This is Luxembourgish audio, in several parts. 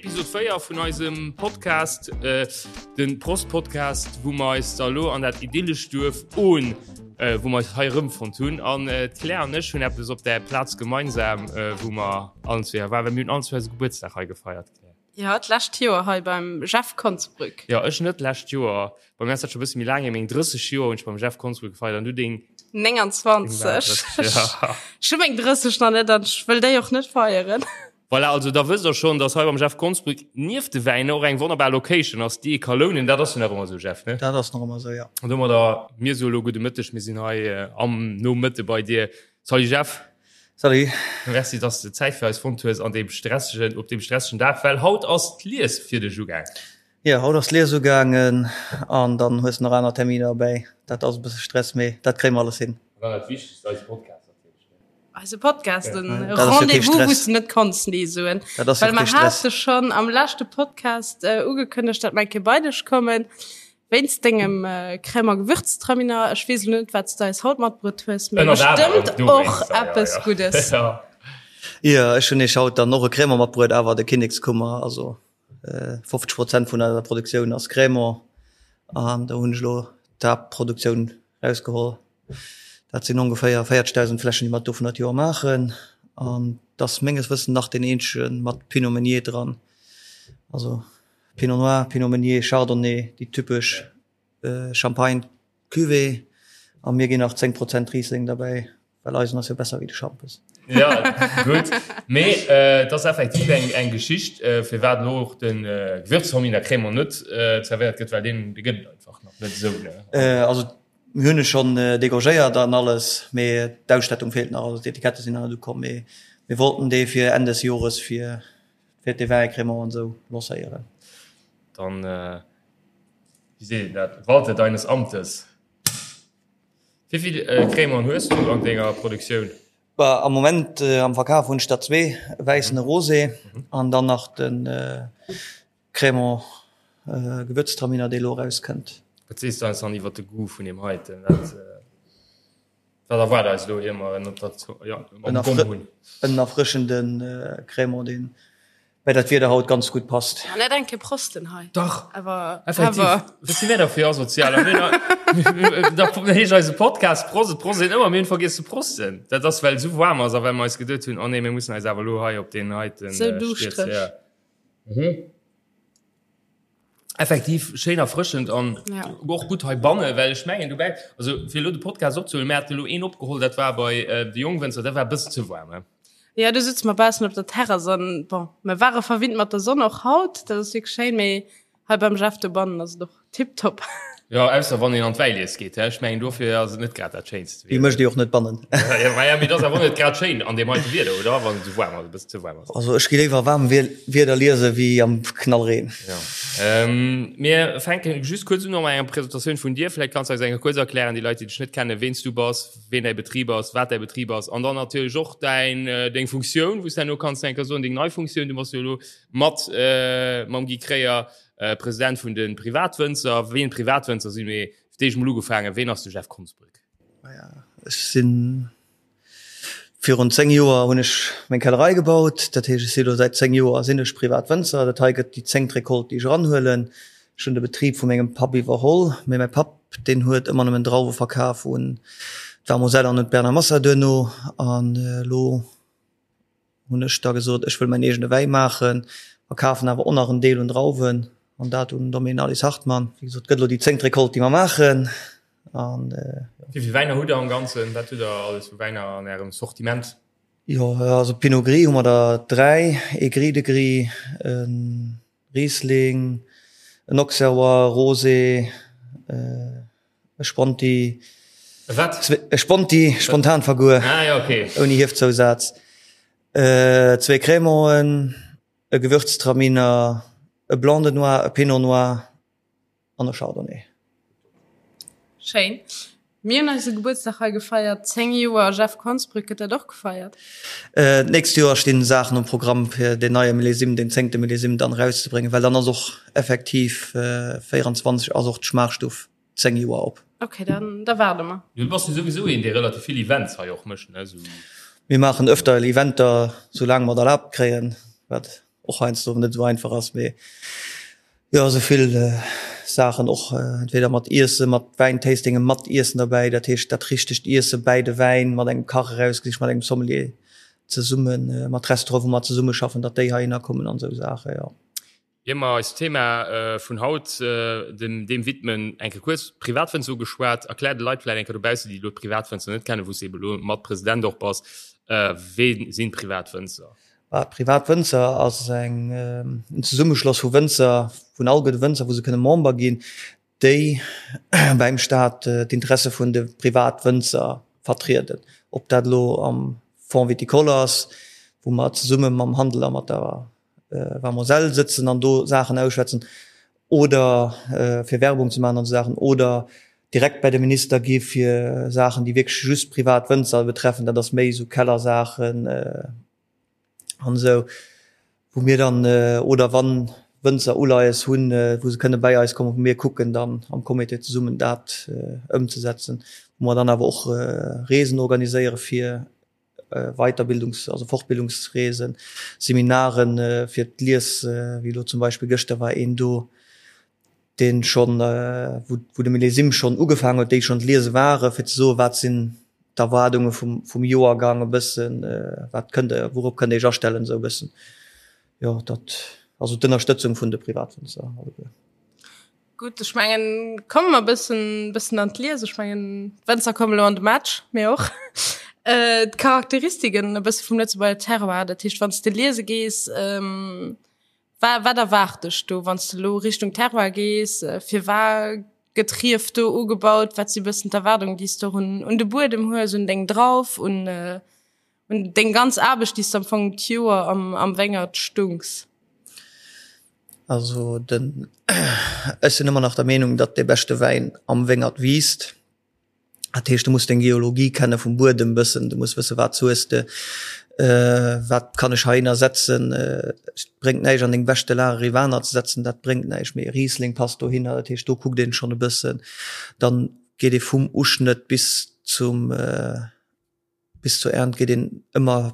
Episode 4 vun eisem Podcast, äh, den Prost Podcast, wou mer eis da lo an dat idyllescht Duerf Ohn, äh, wou mer eis hei erëmfonnt hunn. An äh, d'Claire an ech hunn eppes op der Plaz gemeinsam, äh, wou mer allen zwee waren, well mir hunn allen zwee eise Gebuertsdag hei gefeiert, Claire. Jo, d'lescht Joer hei beim Jeff Konsbrück. Jo, ech net d'lescht Joer. Bei mir ass dat scho bësse méi laang hier. Meng 30 Joer hunn ech beim Jeff Konsbrück gefeiert an du deng 29. Ech hu meng 30 nach net an ech wëll déi och net feieren. Voilà, also da wësst der schonn, dass hei beim Jeff Konsbrück nieft de Wäiner och eng wonnerbar Location ass, déi ee ka lounen. Dat ass jo nach ëmmer esou, Jeff, ne? Dat ass nach ëmmer esou, jo. An domadder, mir soe lo gudde Mëtteg. Mir sinn hei am Nomëtte bei dir. Salut Jeff. Salut. Merci, dass de Zäit fir eis fonnt hues an deem stressegen, op deem stressegen Dag, well haut ass d'Lies fir dech ugaang. Jo, haut ass d'Lies ugaangen an dann hues de nach aner Terminer erbäi. Dat ass e bësse Stress, mee dat kréie mer alles hin. An dann dat Wichtegst, eise Podcast natierlech, ne? Eise Podcast, den Rendez-vous, wou s de net konns Nee soen. Dat ass jo Well mer kee Stress. hate schonn am leschte Podcast ugekënnegt, dat mer eng Kéier bei dech kommen. Wéinst dengem Crème a Gewürztraminer. Ech weess elo net, wat s de eis haut matbruet hues, mee bestëmmt och eppes Guddes. Jo, ech hunn iech haut dann och e Crémant matbruet, awer de Kinnekskummer. Also 50 Prozent vun eiser Produktioun ass Crémant an do hunn ech elo d'Haaptproduktioun rausgeholl. Dat sinn ongeféier 40.000 Fläschen, déi mer dovun dat Joer maachen an et ass menges Wëssen nach deen eenzege mat Pinot Meunier dran. Also Pinot Noir, Pinot Meunier, Chardonnay, déi typesch Champagne Cuvée a mir ginn nach 10 Prozent Riesling derbäi, well eisen ass jo besser wéi de Schampes. Ja, gutt. Mee et ass effektiv eng eng Geschicht, firwat elo och de Gewürztraminer Crémant net zerwéiert gëtt, well deen dee gëtt et einfach nach net esou, ne? Also mir hunn e schonn degorgéiert an alles, mee d'Ausstattung feelt nach, also d'Etikette sinn nach net ukomm, mee mir wollten dee fir Enn des Jores fir Fir de Vin Crémant an esou lancéieren. Dann, wéi seet een dat, walte deines Amtes. Wéi vill Crémant hues du an denger Produktioun? Bah, am Moment am Verkaf hunn ech der zwee, e wäissen, e Rosé an dann nach de Crémant Gewürztraminer, dee elo erauskënnt. Wat sees du eis dann iwwer de Goût vun deem heiten? Wat. Wat erwaart eis elo ier mer en op der ja, am Gomm hunn? En erfrëschende Crémant, deen bei dat Wieder haut ganz gutt passt. Ja, net eng Kéier prosten hei. Dach, Awer, effektiv. awer. Wat si mir da fir Asozialer? Mir da heescht eise Podcast Prost, et prost een ëmmer, mir hunn vergiess ze prosten. Dat ass, well et esou waarm ass a well mer eis geduet hunn, oh nee, mir mussen eis awer elo hei op deen heiten Sou duuschtereg. stierzen. Ja. Mhm. Effektiv schéin erfrëschend an ja. och gutt heibanne, well ech mengen dobäi, also fir elo de Podcast opzehuelen, mir haten elo een opgeholl, dat war bei äh, de Jongwënzer, dat war e bëssen ze waarm. He? Ja, du sitze mer baussen op der Terrass an bon, mir ware verwinnt mat der Sonn och haut, dat ass wierklech schéin, mee hei beim Jeff dobannen ass et och Tiptop. Jo, ausser wann een an d'Wäilies geet, he? Ech mengen dofir ass et net grad dat schéinst Déi mécht Dir och net bannen. Ja, ma ja, mee et ass awer och net grad schéin an deem heite Wieder, oder? Wann et esou waarm ass, e bëssen ze waarm ass. Also ech gi léiwer waarm Wieder liese wéi am Knallreen. Ja. Mir fänke just kuerz un mat enger Presentatioun vun dir. Vläicht kanns du eis eng Kéier kuerz erklären, déi Leit, déi dech net kennen, ween s du bass, ween däi Betrib ass, wat däi Betrib ass an dann natierlech och däin, deng Funktioun, wou s herno kanns eng Kéier soen, deng nei Funktioun. Du bass jo elo mat mam Guy Kreyer President vun de Privatwënzer. Ween Privatwënzer sinn, mee fir d'éischt mol ugefaangen, ween ass de Jeff Konsbrück? Maja, ech sinn virun 10 Joer hunn ech meng Kellerei gebaut. Dat heescht, ech si lo säit 10 Joer sinn ech Privatwënzer. Dat hei gëtt déi zéngt Recolte, déi ech eranhuelen. Ech hunn de Betrib vu mengem Papp iwwerholl, mee mäi Papp, deen huet ëmmer nëmmen Drauwe verkaf un d'Vermoselle an un d'Bernard Massa duerno. An elo hunn ech da gesot, ech wëll mäin eegene Wäi maachen, verkafen awer och nach en Deel un Drauwen an dat un Domaine Alice Hartmann. Wéi gesot, gëtt elo déi zéngt Recolte, déi mer maachen. An Wéi vill Wäiner hutt Der am Ganzen? Wat hutt Der alles vu Wäiner an Ärem Sortiment? Jo, also Pinot Gris hu mer der 3, ee Gris de Gris, e Riesling, en Auxerrois, Rosé, E Sponti. E wat? E Sponti, Spontanverguer. Ah ja, okay. Ouni Hiefzousaz. Zwee Crémanten, e Gewürztraminer, e Blanc de Noir, e Pinot Noir an e Chardonnay. Schéin. Mir hunn eise Gebuertsdag hei gefeiert, 10 Joer Jeff Konsbrück. Gëtt dat och gefeiert? D'nächst Joer stinn Saachen um Programm fir deen neie Millésime, deen zéngte Millésime dann erauszebréngen, well dann ass och effektiv 24 ass och d'Schmaachstuff 10 Joer op. Ok, dann da waarde mer. Du bass jo souwisou een, dee relativ vill Events hei och mécht, ne? Sou. Mir maachen öfter Eventer, soulaang mer et erlaabt kréien, wat. och heiansdo net esou einfach ass, mee jo esou vill Saachen och entweder mat Iesse, mat Wäintastingen, mat Iessen derbäi, dat heescht dat richtegt Iesse bäi de Wäin, mat engem Kach erausgesicht, mat engem Sommelier zesummen, mat Restaurante wou mer zesummeschaffen, datt déi heihinner kommen an esou Saachen, jo. Ier mer eist Thema vun haut dem widmen, eng Kéier kuerz d'Privatwënzer ugeschwat. Erklär de Leit vläicht eng Kéier dobaussen, déi elo d'Privatwënzer net kennen, wou s de ebe elo mat President och bass, Wee sinn d'Privatwënzer? D'Privatwënzer ass eng en Zesummeschloss vu Wënzer, vun all gudde Wënzer, wou se kënne Member ginn, déi beim Staat d'Interesse vun de Privatwënzer vertrieden. Ob dat elo am Fonds viticole ass, wou mer zesumme mam Handel a mat der Wa Moselle sëtzen an do Saachen ausschwätzen oder fir Werbung ze maachen an esou Saachen oder direkt bei de Minister gi fir Saachen, déi wierklech just privat Wënzer betreffen. Dat ass méi esou Kellersaachen an esou, wou mir dann oder wann Wënzer Uleies hunn, wou se kënne bäi eis kommen, wou mir kucken dann am Comité zesummen dat ëmzesetzen, wou mer dann awer och Reesen organiséiere fir Weiterbildungs-, also Fortbildungsreesen, Seminaren fir d'Lies, wéi elo zum Beispill gëschter war een do, dee schonn, wou wou de Millésime schonn ugefaangen huet, déi schonn d'Liese ware fir ze soen, wat sinn d'Erwaardunge vum vum Joergang e bëssen, wat kënnt Der, wourop kënnt Der Iech astellen, esou e bëssen. Jo, dat, also d'Ënnerstëtzung vun de Privatwënzer alleguer. Gutt, ech mengen, komme mer bëssen, bëssen an d'Lies. Ech mengen, d'Wënzer kommen elo an de Match, mir och. Äh, d'Charakteristiken e bësse vum Lëtzebuerger Terroir, dat heescht, wann s de liese gees, ähm, wa wat erwaart dech do, wann s de elo Richtung Terroir gees? Firwat gëtt Rief do ugebaut? Wat si bëssen d'Erwaardungen, déi s de och un, un de Buedem hues, un deng Drauf, un, un deng ganz Aarbecht, déi s de am Fong d'Joer am, am Wéngert stunks? Also den, ech sinn ëmmer nach der Meenung, datt dee beschte Wäin am Wéngert wiisst. Dat heescht, du muss deng Geologie kenne vum Buedem bëssen, du muss wësse wat hues de, wat kann ech heihinner setzen. Et bréngt näischt an deng beschte Lag e Rivaner ze setzen, dat bréngt näischt, mee e Riesling passt dohinner. Dat heescht, do kuckt een schonn e bëssen. Dann geet ee vum Uschnëtt bis zum, bis zur Ernt geet een ëmmer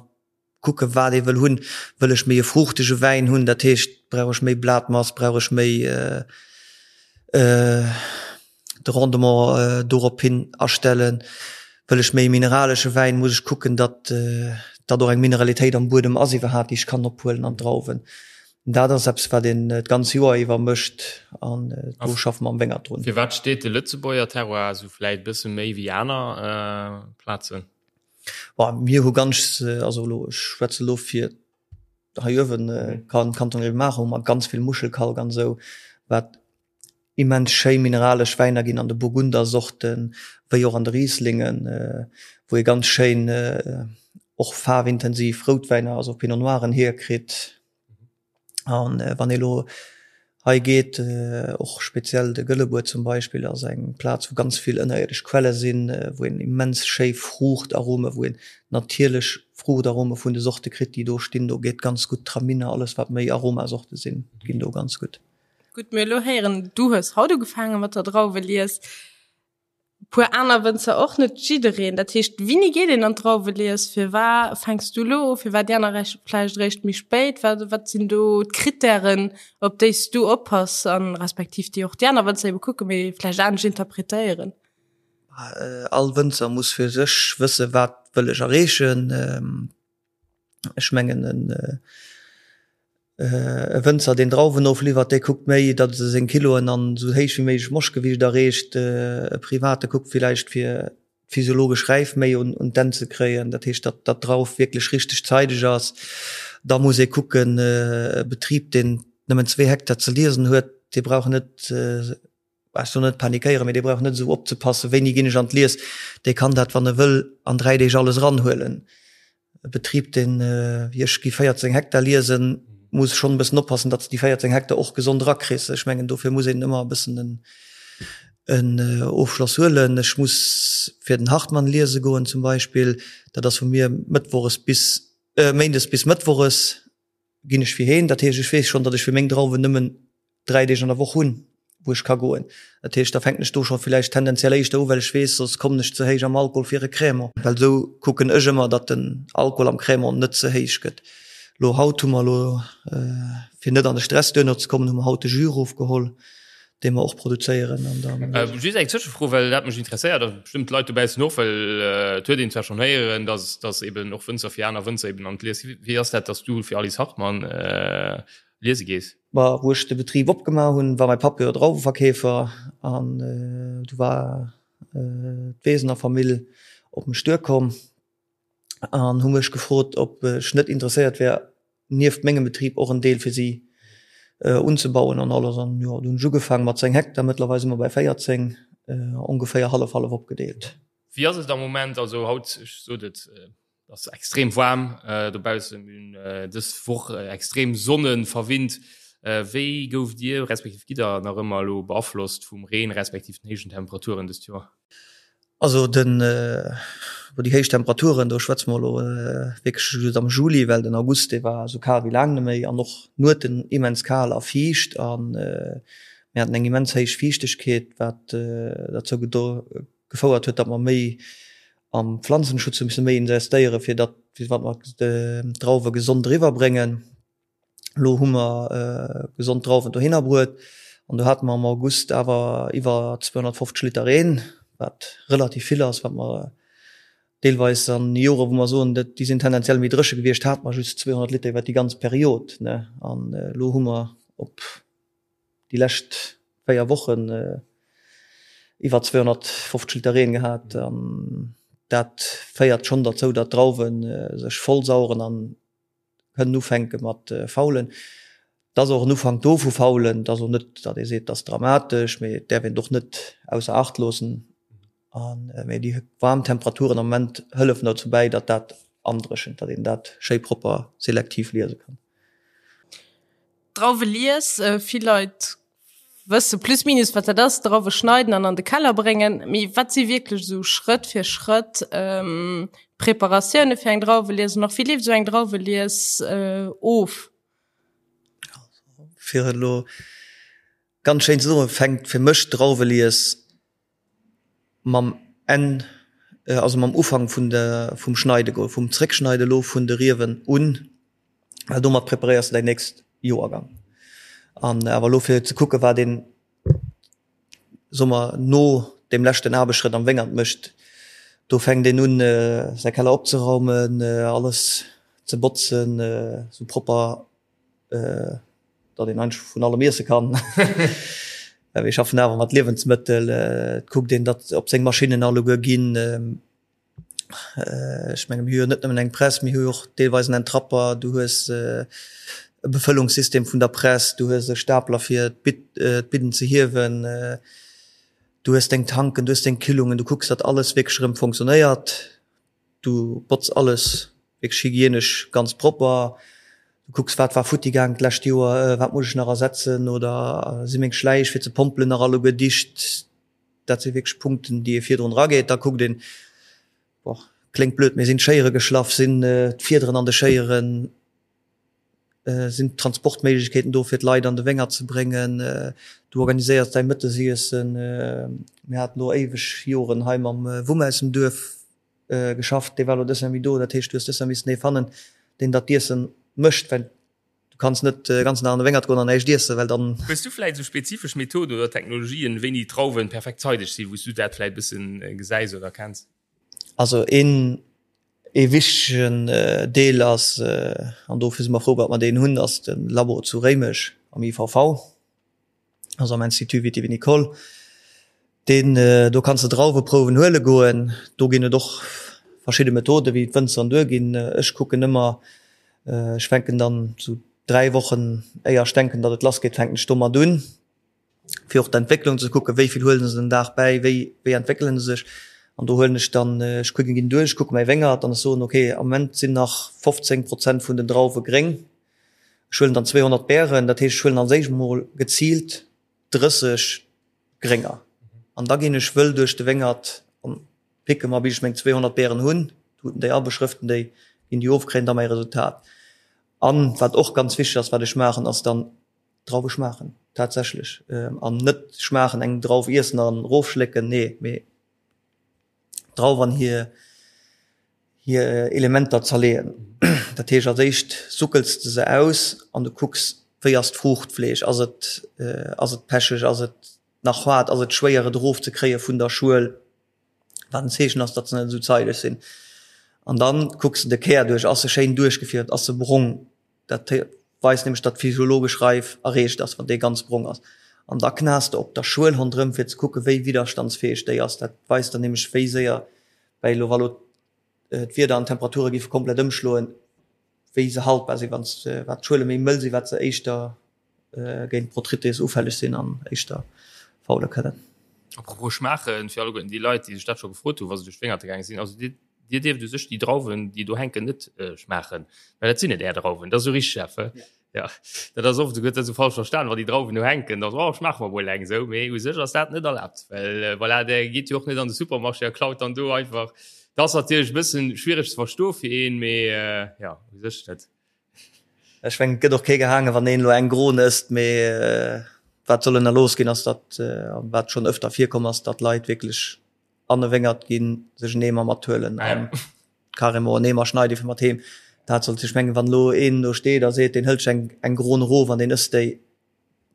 kucke wat ee wëll hunn. Wëll ech méi e fruuchtege Wäin hunn, dat heescht brauch ech méi Blatmass, brauch ech méi de Rendement dorop hin astellen. Wëll ech méi e mineralesche Wäin, muss ech kucken, datt datt och eng Mineralitéit am Buedem ass iwwerhaapt, déi ech kann ophuelen an d'Drauwen. Dat ass eppes wat een d'ganz Joer iwwer mécht an do schaffe mer am Wéngert drun. Firwat steet de Lëtzebuerger Terroir esou vläit e bësse méi wéi aner Plazen? Bon, mir hu ganz, also elo, ech schwätze elo fir hei uewen, Kanton Grevenmacher, hu mer ganz vill Muschelkalk an esou, wat immens schéi mineralesch Wäiner ginn an de Burgundersorten, wéi och an de Rieslingen, wou ee ganz schéin och faarwintensiv Routwäiner, also Pinot Noiren hierkritt. An wann ee lo hei geet, och speziell de Gëllebuer zum Beispill ass eng Plaz, wou ganz vill ënnerierdesch Quelle sinn, wou een immens schéi Fruuchtarome, wou een natierlech Fruuchtarome vun de Sorte kritt, déi do stinn. Do geet ganz gutt Traminer, alles wat méi Aromasorte sinn, ginn do ganz gutt. Gutt, mir elo héieren, du hues haut ugefaange mat der Drauwelies. Puer aner Wënzer och, net jiddereen. Dat heescht, wéini geet een an d'Drauwelies? Firwat fänks du elo u? Firwat déi aner vläicht eréischt méi spéit? Wat, wat sinn do d'Krittären, op déi s du oppass an respektiv déi och déi aner Wënzer ebe kucken, mee vläicht anescht interpretéieren? All Wënzer muss fir sech wësse wat wëll ech erreechen. Ech mengen en e Wënzer deen Drauwen ofliwwert, dee kuckt méi, datt e seng Kiloen an esou héich wéi méiglech Moschtgewiicht erreecht. E Private kuckt villäicht fir d'physiologesch Räif méi un un d'Enn ze kréien, dat heescht datt datt d'Drauf wierklech richteg zeideg ass. Da muss ee kucken, e Betrib deen nëmmen zwee Hektar ze liesen huet, dee brauch net, ech soll net panikéieren, mee dee brauch net esou opzepassen, wéini ginn ech an d'Lies, dee kann dat, wann e wëll, an 3 Deeg alles eranhuelen. E Betrib, deen, wéi ech, gi 14 Hektar liesen, muss schonn e bëssen oppassen, datt s de déi 14 Hektar och gesond erakriss. Ech mengen, dofir muss een ëmmer e bëssen en, en Ofschloss huelen. Ech muss fir den Hartmann liese goen zum Beispill, dat ass vu mir mëttwoches bis, méindes bis mëttwoches. ginn ech fir heen. Dat heescht, ech weess schonn, datt ech fir meng Drauwen nëmmen 3 Deeg an der Woch hunn, wou ech ka goen. Dat heescht, da fänken ech do scho villäicht tendenziell éischter u, well ech weess, soss kommen ech ze héich am Alkohol fir e Crémant. Well esou kucken ech ëmmer, datt den Alkohol am Crémant net ze héich gëtt. Lo haut hu mer elo, fir net an de Stress duerno ze kommen, hu mer haut de Jus erofgeholl, dee mer och produzéieren an dann. Just eng Tëschefro, well dat mech interesséiert a bestëmmt d'Leit dobaussen och, well et huet een zwar schonn héieren, dass dass eben och Wënzer fir aner Wënzer eben an d'Lies. Wéi ass dat, dass du fir Alice Hartmann liese gees? Ma wou ech de Betrib opgemaach hunn, war mäi Papp jo Drauweverkeefer an du war d'Wesener Famill op mech duerkomm an hu mech gefrot, ob ech net interesséiert wär, nieft mengem Betrib och en Deel fir si unzebauen an alles. An jo, du hunn ech ugefaange mat 10 Hektar, mëttlerweil si mer bei 14, ongeféier hallef-hallef opgedeelt. Wéi ass et am Moment? Also haut, ech sot et, ass extrem waarm dobaussen, mir hunn dës Woch extrem sonnenverwinnt. Wéi gouft Dir, respektiv gitt Der nach ëmmer elo beaflosst vum Reen, respektiv den héijen Temperaturen dëst Joer? Also den bon déi héich Temperaturen, do schwätze mer elo wierklech just am Juli, well den August dee war esou kal wéi laang net méi an och d'Nueten immens kal a fiicht an mir haten eng immens héich Fiichtegkeet, wat derzou gefouert huet, datt mer méi am Pflanzenschutz hu misse méi investéiere fir datt fir wat mer d'Drauwe gesond eriwwer bréngen. Elo hu mer gesond Drauwen dohinner bruet an do hate mer am August awer iwwer 250 Liter Reen, wat relativ vill ass, wat mer deelweis an Jore wou mer soen, déi sinn tendenziell méi dréche gewiescht, hate mer just 200 Liter iwwer déi ganz Period. An elo hu mer op déi lescht 4 Wochen iwwer 250 Liter Reen gehat an dat féiert schonn derzou, datt d'Drauwe sech vollsaueren an kënnen ufänke mat faulen. Et ass och en Ufank do vu faulen. Et ass och net, datt ee seet, et ass dramatesch, mee et däerf een et och net ausser Acht loossen. An, mee déi waarm Temperaturen am Moment hëllefen dozou bäi, datt dat andréchent, datt een dat schéi propper selektiv liese kann. Drauwe lies, vill Leit wësse plus minus wat dat ass, Drauwe schneiden an an de Keller bréngen. Mee wat si wierklech esou Schrëtt fir Schrëtt d'Preparatioune fir eng Drauwelies an och wéi leeft esou eng Drauwelies of? Fir et elo ganz schéin ze soen, fänkt fir mech d'Drauwelies mam Enn, also mam Ufank vun der, vum Schneide, vum Zréckschneide elo vun de Riewen un, well domat preparéiers de däin nächst Joergang. An awer elo fir ze kucke wat een, soe mer, no deem leschten Aarbechtsschrëtt am Wéngert mécht, do fänkt een un säi Keller opzeraumen, alles ze botzen, esou propper datt een eigentlech vun allem iesse kann. Well mir schaffen awer mat Liewensmëttel. Et kuckt een, datt op seng Maschinnen alleguer ginn. Ech menge mir hu jo net nëmmen eng Press, mir hu jo och deelweis en Entrapper, du hues e Befëllungssystem vun der Press, du hues e Stapler fir d'Bidden ze hiewen, du hues deng Tanken, du hues deng Kühlungen, du kucks, datt alles wierklech erëm funktionéiert. Du botz alles wierklech hygienesch ganz propper. Du kucks wat war futti gaang d'lescht Joer, wat muss ech nach ersetzen oder si meng Schläich fir ze pompelen nach alleguer dicht. Dat si wierklech Punkten déi ee virdrun erageet. Da kuckt een, boah, kléngt blöd, mee sinn d'Schéiere geschlaff, sinn d'Fiederen an de Schéieren, sinn d'Transportméiglechkeeten do fir d'Leit an de Wéngert ze bréngen. Du organiséiers däi Mëttesiessen. Mir haten elo éiweg Joren hei mam Wumm aus dem Duerf geschafft, dee war elo dës Jahr méi do, dat heescht du hues dës Jahr missen ee fannen, deen dat d'Iessen mécht, well du kanns net de ganzen Dag an de Wéngert goen an näischt iessen, well dann. Hues du vläit esou spezifesch Methoden oder Technologien, wéini d'Drauwen perfekt zeideg sinn, wou s du dat vläit e bëssen gesäis oder kenns? Also een ee wichtegen Deel ass, an dofir si mer frou, datt mer deen hunn, ass de Labo zu Réimech am IVV. also am Institut Viti-Vinicole, deen, do kanns de Drauweprouwen huele goen. Do ginn et och verschidde Methoden, wéi d'Wënzer duerginn. Ech kucken ëmmer, ech fänken dann sou 3 Wochen éier ech denken, datt et lass geet, fänken ech domat un, fir och d'Entwécklung ze kucken, wéi vill huele se den Dag bäi, wéi, wéi entwéckele se sech. An do huelen ech dann, ech kucken, ginn duerch, kucke mäi Wéngert an ech soen, okay, am Moment sinn nach 15 Prozent vun den Drauwe gréng. Ech huelen dann 200 Bären, dat heescht ech huelen als éischt mol geziilt 30 Grénger an da ginn ech wëll duerch de Wéngert an picke mer bis ech meng 200 Bären hunn, tuten déi a beschrëften déi, ginn déi of, kréien da mäi Resultat. An wat och ganz wichteg ass, wat ech maachen, ass dann Drauwe schmaachen tatsächlech an net schmaachen, eng Drauf iessen an erofschlécken, nee, mee Drauf an hir. Hir Elementer zerleeën. Dat heescht, als éischt suckels de se aus an du kucks, wéi ass d'Fruuchtfleesch, ass et, ass et pecheg, ass et nach haart, ass et schwéier et erofzekréie vun der Schuel, wat en Zeechen ass, datt se net esou zeideg sinn. An dann kucks de de Kär duerch, ass e schéin duerchgefierft, ass e brong, dat weist nämlech, datt d'physiologesch Reif erreecht ass, wann dee ganz brong ass. An da knas de op der Schuel ronderëm, fir ze kucke wéi widderstandsfäeg déi ass. Dat weist dann nämlech, wéi séier Well elo wa lo d'Wieder an d'Temperature géife komplett ëmschloen, wéi se haltbar sinn, wann wat d'Schuele méi mëll sinn, wat se éischter géint Botrytis ufälleg sinn an éischter faule kënnen. Apropos schmaachen, fir alleguerten déi Leit, déi sech dat scho gefrot hunn, wa se duerch d'Wéngerte gaange sinn, also dir, dir dierft u sech déi Drauwen, déi do hänken, net schmaachen, well dat sinn net är Drauwen. Dat ass esou richteg, Jeff, he? Ja, dat ass oft, gëtt dat esou falsch verstan, wa déi Drauwen do hänken, da oh, schmaache mer mol eng esou, mee u sech ass dat net erlaabt, well äh, voilà, der geet jo och net an de Supermarché a klaut dann do einfach. Dat ass natierlech e bëssen schwiereg ze verstoe fir een, mee äh, ja, u sech net. Ech mengen, et gëtt och kee gehaangen, wann een elo eng Gron ësst, mee äh, wat soll ënnerlooss ginn, ass datt, äh, wat schonn ëfter virkomm ass, datt Leit wierklech an e Wéngert ginn, sech en Eemer mathuelen an carrément en Eemer schneide fir mat heem. Dat sollt, ech mengen, wann elo een do steet a seet, deen hëlt sech eng, eng Gron erof an deen ësst déi,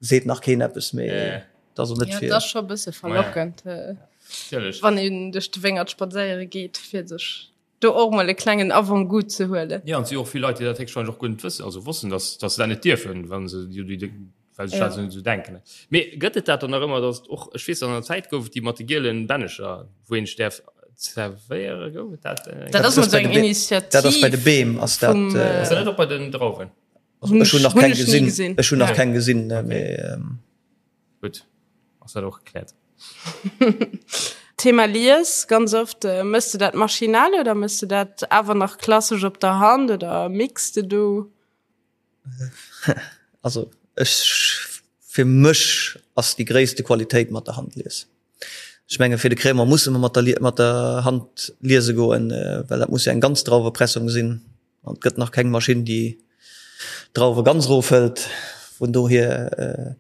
seet nach keen eppes, mee dat ass och net Ja, fir. dat ass scho e bësse verlockend, wann een duerch de Wéngert spadséiere geet, fir sech do och mol e klengen Avant-goût ze huelen. Jo, an et si och vill Leit, déi dat héchstwahrscheinlech och guer net wëssen, also wossten, dass, dass se dat net dierfen, wa se déi, well sech dat esou denken. Mee gëtt et dat dann nach ëmmer, datt och, ech weess an der Zäit gouf et déi mat de gielen Bännecher, wou een sech däerf zerwéiere, gouf et dat? Dat ass mol esou eng Initiativ. Dat ass bei de Beem ass dat. Ass dat net och bei den Drauwen? Ech hunn nach keng gesinn, ech hunn nach keng gesinn, mee. Gutt, ass dat och gekläert. Thema Lies, ganz oft, mëss de dat maschinell oder mëss de dat awer nach klassesch op der Hand oder mixe de do? Also ech fir mech ass déi gréisste Qualitéit mat der Hand lies. Ech menge fir de Crémant musse mer mat der mat der Hand liese goen, well dat muss jo eng ganz Drauwepressung sinn an et gëtt nach keng Maschinn déi Drauwe ganz erofhëlt. Vun dohier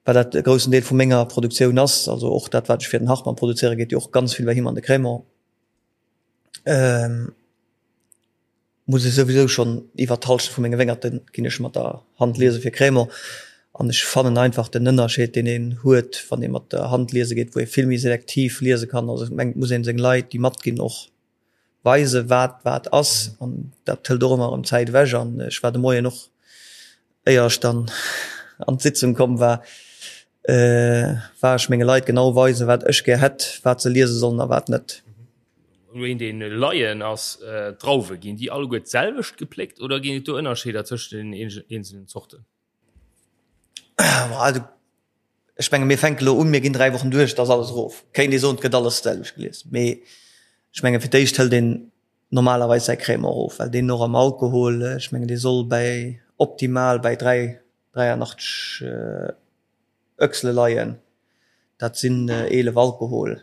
well dat e groussen Deel vu menger Produktioun ass, also och dat wat ech fir den Hartmann produzéiere geet jo och ganz vill bei him an de Crémant. Muss ech souwisou schonn iwwert d'Halschent vu menge Wéngerte ginn ech mat der Hand liese fir Crémant. An ech fannen einfach den Ënnerscheed deen een huet, wann ee mat der Hand liese geet, wou ee vill méi selektiv liese kann. Also ech mengen et muss een seng Leit déi matginn och weise wat wat ass an dat hëlt och ëmmer erëm Zäit ewech. An ech war de Moien och éier ech dann an d'Sitzung komm war, war ech menge Leit genau weisen, wat ech gär hätt, wat se liese sollen a wat net. Elo een deen Laien ass, D'Drauwe, ginn déi alleguer d'selwecht gepléckt oder ginn et do Ënnerscheeder tëscht den eenzelen Zorten? Also ech menge mir fänke lo un, mir ginn 3 Wochen duerch, da ass alles erof. Kéint ee soen, et gëtt alles d'selwecht gelies, mee ech menge fir d'éischt hëlt een normalerweis säi Crémant erof, well deen och am Alkohol, ech mengen dee soll bäi optimal bäi 3, 83 Öchsele leien, dat sinn 11 Alkohol,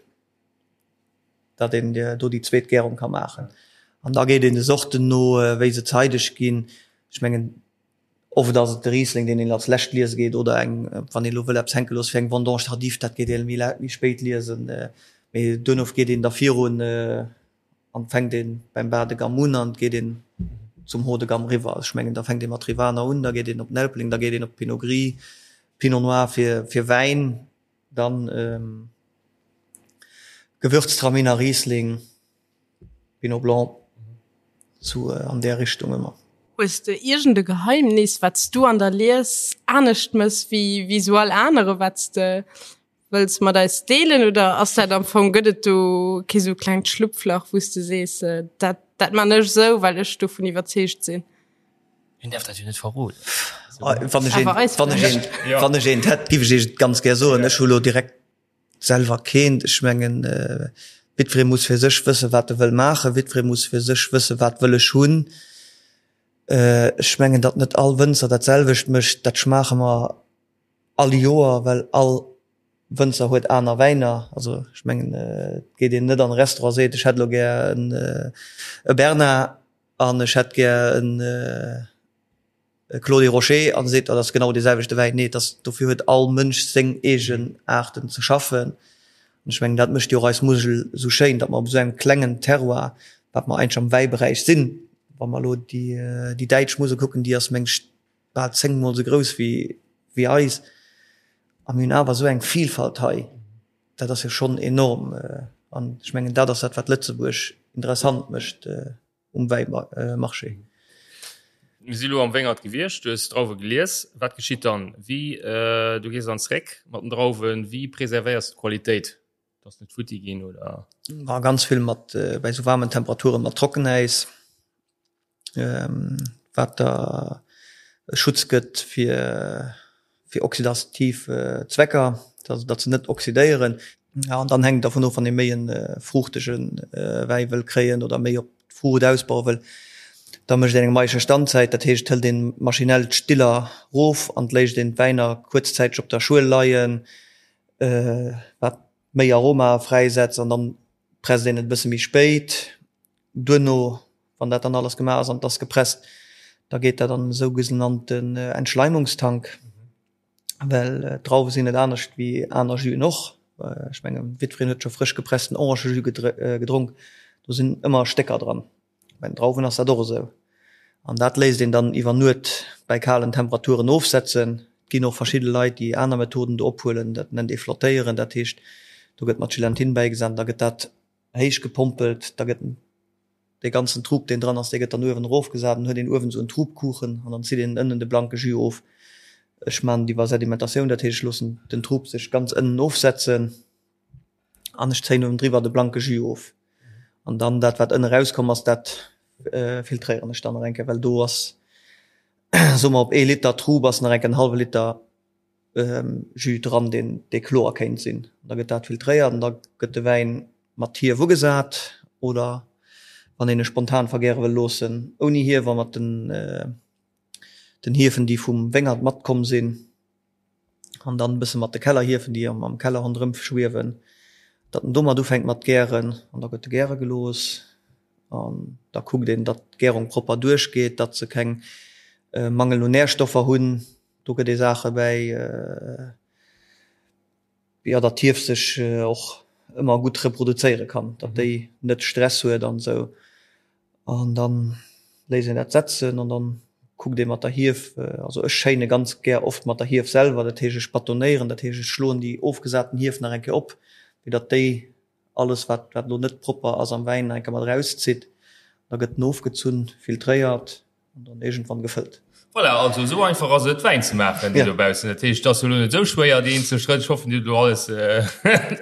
datt een do déi zweet Gärung ka maachen. An da geet een de Sorten no, wéi se zeideg ginn. Ech mengen oft ass et de Riesling, deen een als lescht liese geet, oder eng, wann een elo wëll eppes hänke loosse fir eng Vendange tardive, dat geet ee méi spéit liesen. Mee duerno geet een da virun. An fänkt een beim Bas de gamme un an geet een zum Haut de gamme riwwer. Also ech mengen da fänkt ee mat Rivaner un, da geet een op den Elbling, da geet een op Pinot Gris, Pinot Noir fir fir Wäin, dann Gewürztraminer, Riesling, Pinot Blanc, sou an där Richtung ëmmer. Hues de iergend e Geheimnis wat s du an der Lies anescht mëss wéi wéi sou all anere, wat s de Wëlls mat eis deelen oder ass dat am Fong, gëtt et do kee sou klengt Schlupflach, wou s de sees, dat dat man ech sou, well ech dovun iwwerzeegt sinn? Hien däerf dat jo net verroden. Wann ech eent, wann ech eent, wann ech eent hätt, giff ech iech et ganz gär soen. Ech hu lo direkt selwer keent. Ech mengen, jiddweree muss fir sech wëssen, wat e wëll maachen. Jiddweree muss fir sech wëssen, wat wëll ech hunn. Ech mengen, datt net all Wënzer dat selwecht mécht, dat schmaache mer All Joer, well all Wënzer huet aner Wäiner. Also ech mengen, et geet een net an e Restaurant a seet, ech hätt elo gär en e Bernard an ech hätt gär en e Clos des Rochers an seet, dat ass genau dee selwechte Wäin. Nee, et ass, dofir huet all Mënsch seng eegen Aarten ze schaffen. An ech mengen, dat mécht jo och eis Musel esou schéin, datt mer op esou engem klengen Terroir. Wat mer eigentlech am Wäiberäich sinn. Wa mer elo déi, déi däitsch Musel kucken, déi ass meng ech bal zéngmol esou grouss wéi, wéi eis. A mir hunn awer esou eng Vielfalt hei. Dat ass jo schonn enorm. An ech mengen, dat ass dat, wat Lëtzebuerg interessant mécht um Wäimarché. Mir si lo am Wéngert gewiescht, du hues d'Drauwe gelies. Wat geschitt dann? Wéi, du gees dann zréck mat den Drauwen, wéi preservéiers du d'Qualitéit? Dass net futti ginn oder? Ma ganz vill mat bei sou waarmen Temperaturen mat Trockenäis, wat der e Schutz gëtt fir fir oxidativ Zwecker, also datt se net oxidéieren. Ja an dann hänkt et dervun of, wann ee méi e fruuchtege Wäi wëll kréien oder méi op d'Fruucht ausbaue wëll, da mécht een eng maische Standzäit, dat heescht et hëlt een maschinell d'Stiller rof an et léisst een d'Wäiner kuerzzäiteg op der Schuel leien. wat méi Aroma fräisetzt an dann presst een et e bësse méi spéit. Duerno, wann dat dann alles gemaach ass an et ass gepresst, da geet dat an e sougenannten Entschleimungstank, well d'Drauwe sinn net anescht wéi aner Juen och. Ech mengen, jiddwereen huet scho frësch gepressten Orangejus gedronk, do sinn ëmmer Stécker dran. Bei den Drauwen ass dat och esou. An dat léisst een dann iwwer Nuet bei kalen Temperaturen ofsetzen. Et ginn och verschidde Leit, déi aner Methoden do ophuelen. Dat nennt ee flottéieren. Dat heescht, do gëtt mat Gelatine bäigesat an da gëtt dat héich gepompelt. Da gëtt dee ganzen Trub, deen dran ass, dee gëtt dann uewen erofgesat. Dann huet een uewen esou en Trubkuchen an dann zitt een ënnen de blanke Jus of. Ech maachen et iwwer Sedimentatioun, dat heescht, ech loossen den Trub sech ganz ënnen ofsetzen. An ech zéien uewendriwwer de blanke Jus of. An dann dat wat ënne rauskomm ass, dat filtréieren ech dann nach eng Kéier, well do ass, soe mer op ee Liter Trub ass nach eng Kéier en hallwe Liter Jus dran, deen dee kloer kéint sinn. Da gëtt dat filtréiert an da gëtt de Wäin mat Hief ugesat oder wann een e spontan vergäre wëll loossen, ouni Hief a mat den den Hiefen déi vum Wéngert matkomm sinn. an dann e bësse mat de Kellerhiefen, déi am Keller ronderëm schwiewen, datt en domat ufänkt mat gären an da gëtt e gäre gelooss an da kuckt een, datt d'Gärung propper duerchgeet, datt se keng Mangel un Närstoffer hunn. Do gëtt ee Saache bäi, jo, datt d'Hief sech och ëmmer gutt reproduzéiere kann, datt déi net Stress huet an esou. An dann léisst een dat setzen an dann kuckt ee mat der Hief, also ech schéine ganz gär oft mat der Hief selwer, dat heescht ech batonéieren, dat heescht ech schloen déi ofgesaten Hief nach eng Kéier op, fir datt déi alles wat wat elo net propper ass am Wäin nach eng Kéier mat erauszitt. Da gëtt en ofgezunn, filtréiert an dann iergendwann gefëllt. Voilà, also esou einfach ass et Wäin ze maachen, déi dobaussen. Dat heescht, et ass elo net esou schwéier déi eenzel Schrëtt. Ech hoffen, Dir hutt elo alles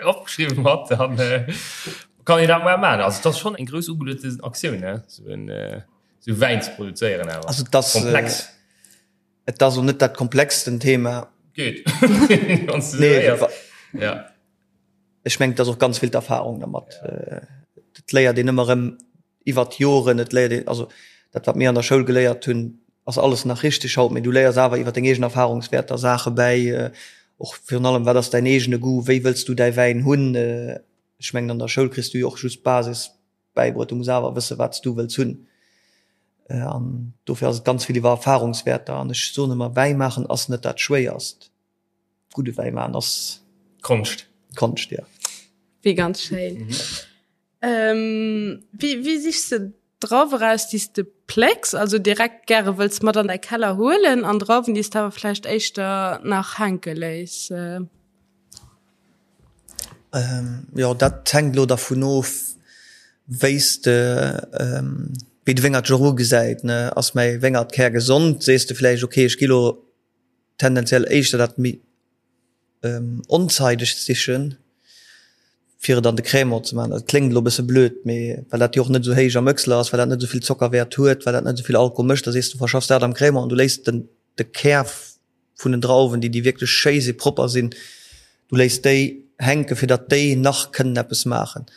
opgeschriwwen mat, dann kann een dat mol maachen. Also et ass schonn eng grouss ugeluechten Aktioun, ne, esou en esou Wäin ze produzéieren awer. Also et ass komplex. Et ass elo net dat komplexsten Thema. Geet, wann s de esou héiers. Ja. Ech mengen, et ass och ganz vill d'Erfahrung dermat. Et léiert een ëmmer erëm iwwert d'Joren, et léiert een, also dat wat mir an der Schoul geléiert hunn, ass alles nach richteg haut, mee du léiers awer iwwer deng eegen Erfahrungswäerter Saache bäi, och virun allem, wat ass däin eegene Goût, wéi wëlls du däi Wäin hunn. Ech mengen, an der Schoul kriss du jo och just d'Basis bäibruet, du muss awer wësse wat s du wëlls hunn. An dofir ass et ganz vill iwwer Erfahrungswäerter an ech soen ëmmer, Wäi maachen ass net dat Schwéierst. Gudde Wäi maachen ass Konscht. Konscht, jo. Wéi ganz schéin. Ähm, wéi, wéi sichs de Drauwe raus, déi s de plécks, also direkt gäre wëlls mat an däi Keller huelen, an Drauwen, déi s de awer vläicht éischter nach hänke léiss? Ähm, jo, dat hänkt elo dervun of, wéi s de, wéi de Wéngert sech och ugesäit, ne. Ass mäi Wéngert kärgesond, sees de vläicht, okay, ech gi lo tendenziell éischter dat méi onzeidegt sichen, fir et an de Crémant ze maachen. Dat kléngt elo e bësse blöd, mee well dat jo och net esou héich am Öchsler ass, well dat net esou vill Zockerwäert huet, well dat net esou vill Alkohol mécht, da sees du, verschaffs dat am Crémant an du léiss den de Kär vun den Drauwen, déi déi wierklech schéi si propper sinn, du léiss déi hänken, fir datt déi nach kënnen eppes maachen.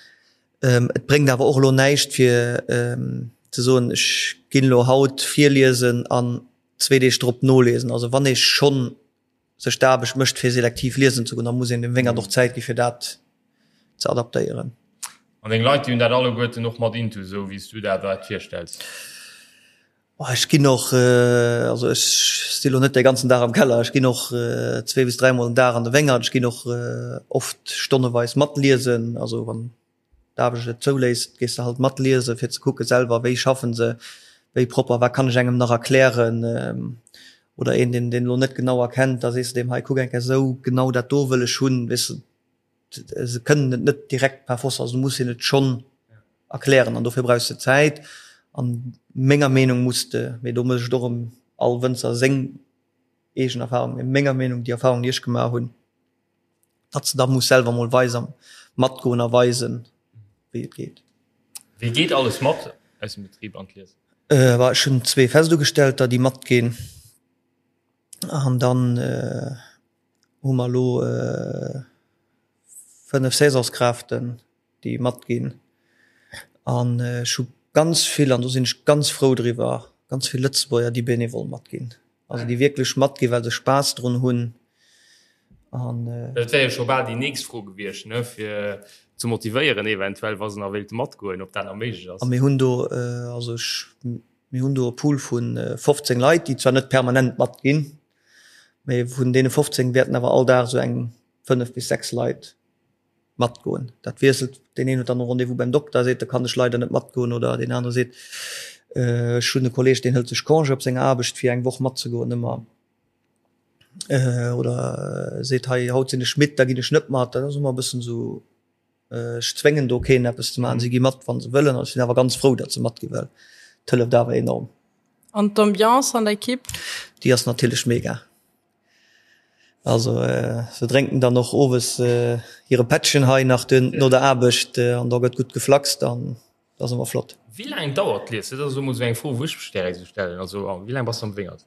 Et bréngt awer och elo näischt fir ze soen, ech ginn elo haut virliesen an zwee Deeg drop noliesen. Also wann ee schonn sech d'Aarbecht mécht fir selektiv liesen ze goen, da muss een dem Wéngert och Zäit gi fir dat ze adaptéieren. An deng Leit, déi hunn dat alleguerten och mat intus, esou wéi s du der dat virstells? Ech ginn och, also ech si lo net de ganzen Dag am Keller, ech ginn och zwee bis dräimol den Dag an de Wéngert, ech ginn och oft stonneweis matliesen, also wann. d'Aarbecht et zouléisst, gees de halt mat liesen, fir ze kucke selwer, wéi schaffen se, wéi propper, wat kann ech engem nach erklären oder een, deen deen elo net genau erkennt, da sees de deem, hei kuck eng Kéier esou, genau dat do wëll ech hunn, weess de. Se kënnen et net direkt par force, also du muss hinnen et schonn erklären an dofir brauchs de Zäit an menger Meenung muss de, mee do mécht och erëm all Wënzer seng eegen Erfahrung, mee menger Meenung déi Erfahrung déi ech gemaach hunn, datt s de da muss selwer mol weisen, matgoen a weisen wéi et geet. Wie geet alles mat aus dem Betrib an d'Lies? Ech hunn zwee Festugestellter déi matginn an dann hu mer elo 5 Saisonskräften, déi matginn. An ech hu ganz vill, an do sinn ech ganz frou driwwer, ganz vill Lëtzebuerger, déi bénévol matginn. Also déi wierklech matginn, well se Spaass drun hunn. An. Dat wär jo scho bal déi nächst Fro gewiescht, ne, fir ze motivéieren eventuell, wa se nach wéilte matgoen, ob dat nach méiglech ass. A mir hunn do, also ech, mir hunn do e Pool vu 15 Leit, déi zwar net permanent matginn, Mee vun deene 15 wäerten awer all Dag esou eng 5 bis 6 Leit matgoen. Dat wiesselt, deen een huet dann e Rendez-vous beim Dokter, seet, da kann ech leider net matgoen oder deen anere seet, ech hunn e Kolleeg, deen hëlt sech Congé op senger Aarbecht fir eng Woch matzegoen ëmmer oder seet, hei haut sinn ech midd, da ginn ech net mat. Dat ass ëmmer e bëssen esou. Ech zwéngen do keen eppes ze maachen. Si gi mat, wa se wëllen. An ech sinn awer ganz frou, datt se matgi well et hëlleft awer enorm. An d'Ambiance an der Ekipp? Déi ass natierlech mega. Also se drénken dann och owes hire Pättchen hei nach duer no der Aarbecht an da gëtt gutt geflaxt an dat ass ëmmer flott. Wéi laang dauert d'Lies? Dat ass elo mol esou eng Fro, wou ech mech direkt esou stellen. Also wéi laang bass de am Wéngert?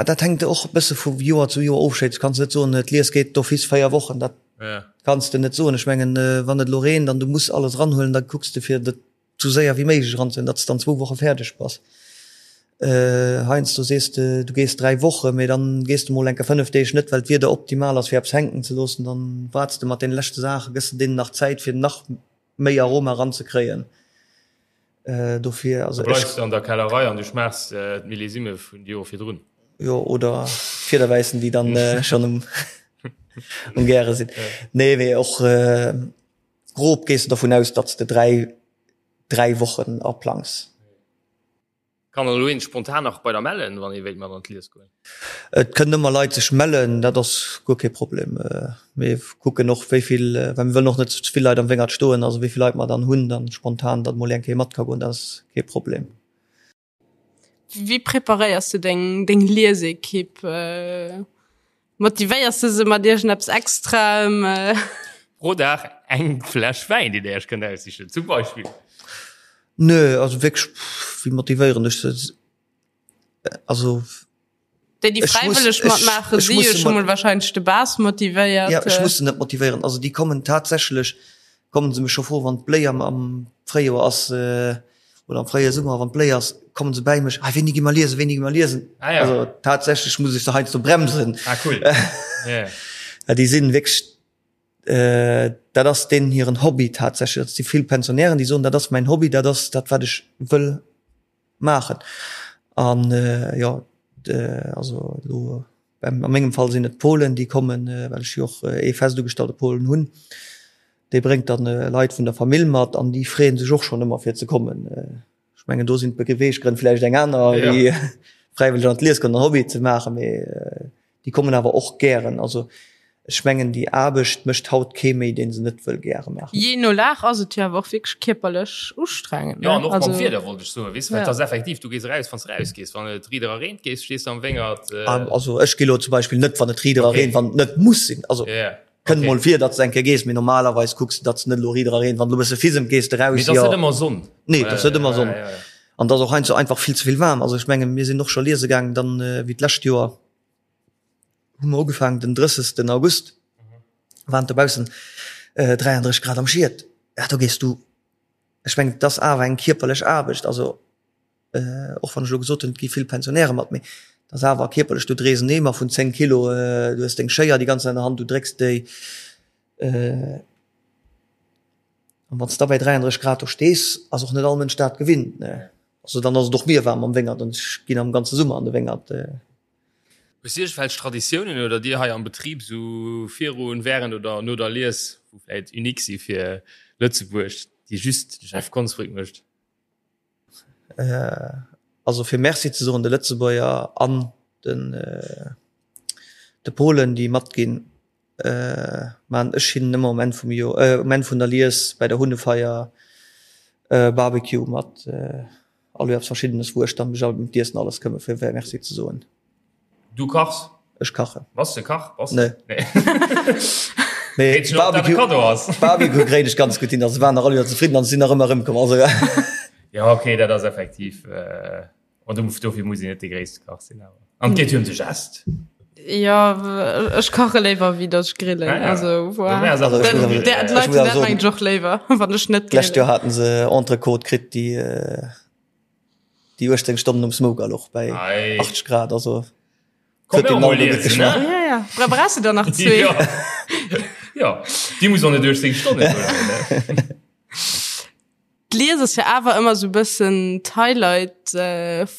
Dat hänkt och e bësse vu Joer zu Joer of. Du kanns net soen, d'Lies geet d'office 4 Wochen. Dat kanns de net soen. Ech mengen, wann et elo reent an du muss alles eranhuelen, da kucks de fir dat sou séier wéi méiglech eranzehuelen, datt s dann zwou Woche fäerdeg bass. Heiansdo sees de, du gees 3 Wochen, mee dann gees de mol enke 5 Deeg net, well d'Wieder optimal ass fir eppes hänken ze loossen. Dann waarts de mat deene leschte Saachen, gëss de deenen nach Zäit fir nach méi Aroma eranzekréien. Dofir, also ech. Bleifs de an der Kellerei an du schmaachs d'Millésime vun de Jore virdrun. Jo, oder d'Fiederwäissen, déi dann schonn um um Gäre sinn. Nee, mee och grob gees de dovun aus, datt s de 3, 3 Wochen aplangs. Kann elo een spontan nach bei der mellen, wann ee wéilt mat an d'Lies goen? Et kënnen ëmmer Leit sech mellen, dat ass guer kee Problem. Mir kucken och wéi vill, well mir wëllen och net ze vill Leit am Wéngert stoen, also wéi vill Leit mer dann hunn, dann spontan, datt mol eng Kéier mat ka goen, dat ass kee Problem. Wéi preparéiers du deng deng Liesekipp? Motivéiers du se mat iergendeppes Extraem? Pro Dag eng Fläsch Wäin, déi der iech kënnt aussichen, zum Beispill. Nö, also wierklech, wéi motivéieren ech se? Also Déi, déi fräiwëlleg matmaachen, si jo scho mol wahrscheinlech de base motivéiert. Ja, ech muss se net motivéieren. Also déi kommen tatsächlech, kommen se mech scho froen, wann d'Bléi am, am Fréijoer ass oder am fréie Summer, wann d'Bléi ass, kommen se bäi mech, ah wéini gi mer liesen, wéini gi mer liesen? Ah, ja. Also tatsächlech muss ech se heiansdo bremsen. Ah, cool. Yeah. Déi sinn wierklech Dat ass deenen hiren Hobby tatsächlech. Dat si vill Pensionären, déi soen, dat ass mäin Hobby, dat ass dat, wat ech wëll maachen. An jo, also elo a mengem Fall sinn et d'Polen, déi kommen, well ech jo och ee fest ugestallte Polen hunn. Dee bréngt dann Leit vun der Famill mat an déi freeë sech och schonn ëmmer fir ze kommen. Ech mengen do sinn d'Beweeggrënn vläicht eng aner wéi fräiwëlleg an d'Lies goen an Hobby ze maachen, mee déi kommen awer och gären. Also ech mengen déi Aarbecht mécht haut kee méi, dee se net wëll gäre maachen. Jee no Lag ass et jo awer och wierklech kierperlech ustrengend, ne? Jo, an och mam Wieder wollt ech soen, weess de, well et ass effektiv, du gees eraus, wann s de erausgees, wann et riit era reent, gees, stees de am Wéngert. Also ech gi lo zum Beispill net, wann et riit era reent, wann et net muss sinn. Also Kënnt mol vir, datt s eng Kéier gees, mee normalerweis kucks de, datt s net elo riit era reent. Wann elo e bësse fisemt, gees de raus. Mee et ass net ëmmer Sonn. Nee, et ass net ëmmer Sonn. An et ass och heiansdo einfach vill ze vill waarm. Also ech mengen, mir sinn och scho liese gaangen dann, wéi d'lescht Joer hu mer ugefaangen den 30. August, waren et dobaussen 33 Grad am Schiet. Ja, do gees du, ech mengen, et ass awer eng kierperlech Aarbecht. Also och wann ech elo gesot hunn, et gi vill Pensionäre mat, mee et ass awer kierperlech, du dréis en Eemer vun 10 Kilo, du hues deng Schéier déi ganz Zäit an der Hand, du drécks déi. An wann s de da bei 33 Grad do stees, ass och net all Mënsch dat gewinnt, ne. Also dann ass et och mir waarm am Wéngert an ech ginn am ganze Summer an de Wéngert. Hues du iergendwelch Traditiounen oder dir hei am Betrib sou virun, während oder no der Lies, wou vläit unique si fir Lëtzebuerg, déi just de Jeff Konsbrück mécht? Also fir Merci ze soen de Lëtzebuerger an den de Polen, déi matginn, maan ech hinnen ëmmer um Enn vum Joer, um Enn vun der Lies bäi der Hunnefeier Barbecue mat All Joer eppes Verschiddenes, wou ech dann mech ëm d'Iessen alles këmmen, fir Merci ze soen. Du kachs? Ech kachen. Bass de Kach? Bass Nee. Mee Barbecue, Barbecue kréien ech ganz gutt hin. Also waren nach all Joer zefridden an sinn nach ëmmer erëmkomm. Also Ja, okay, dat ass effektiv. Äh, an dofir muss een net de gréisste Kach sinn awer. An et geet jo ëm de Gest. Jo, ech kache léiwer wéi datt ech grillen. Ah, ja. Also voilà. Also, ech muss awer- D'Leit ech muss awer dat mengen ech och léiwer, wann ech net D'lescht Joer haten se Entrecôte kritt, déi déi 18 Stonnen um Smoker louch bei Ei. 80 Grad. Also Komm, huet den mol gutt geschmaacht. Ja, ja. Bra brauchst du der nach zwee. Ja. ja, déi muss och net 18 Stonnen huelen. Ne? D'Lies ass jo awer ëmmer sou bëssen d'Highlight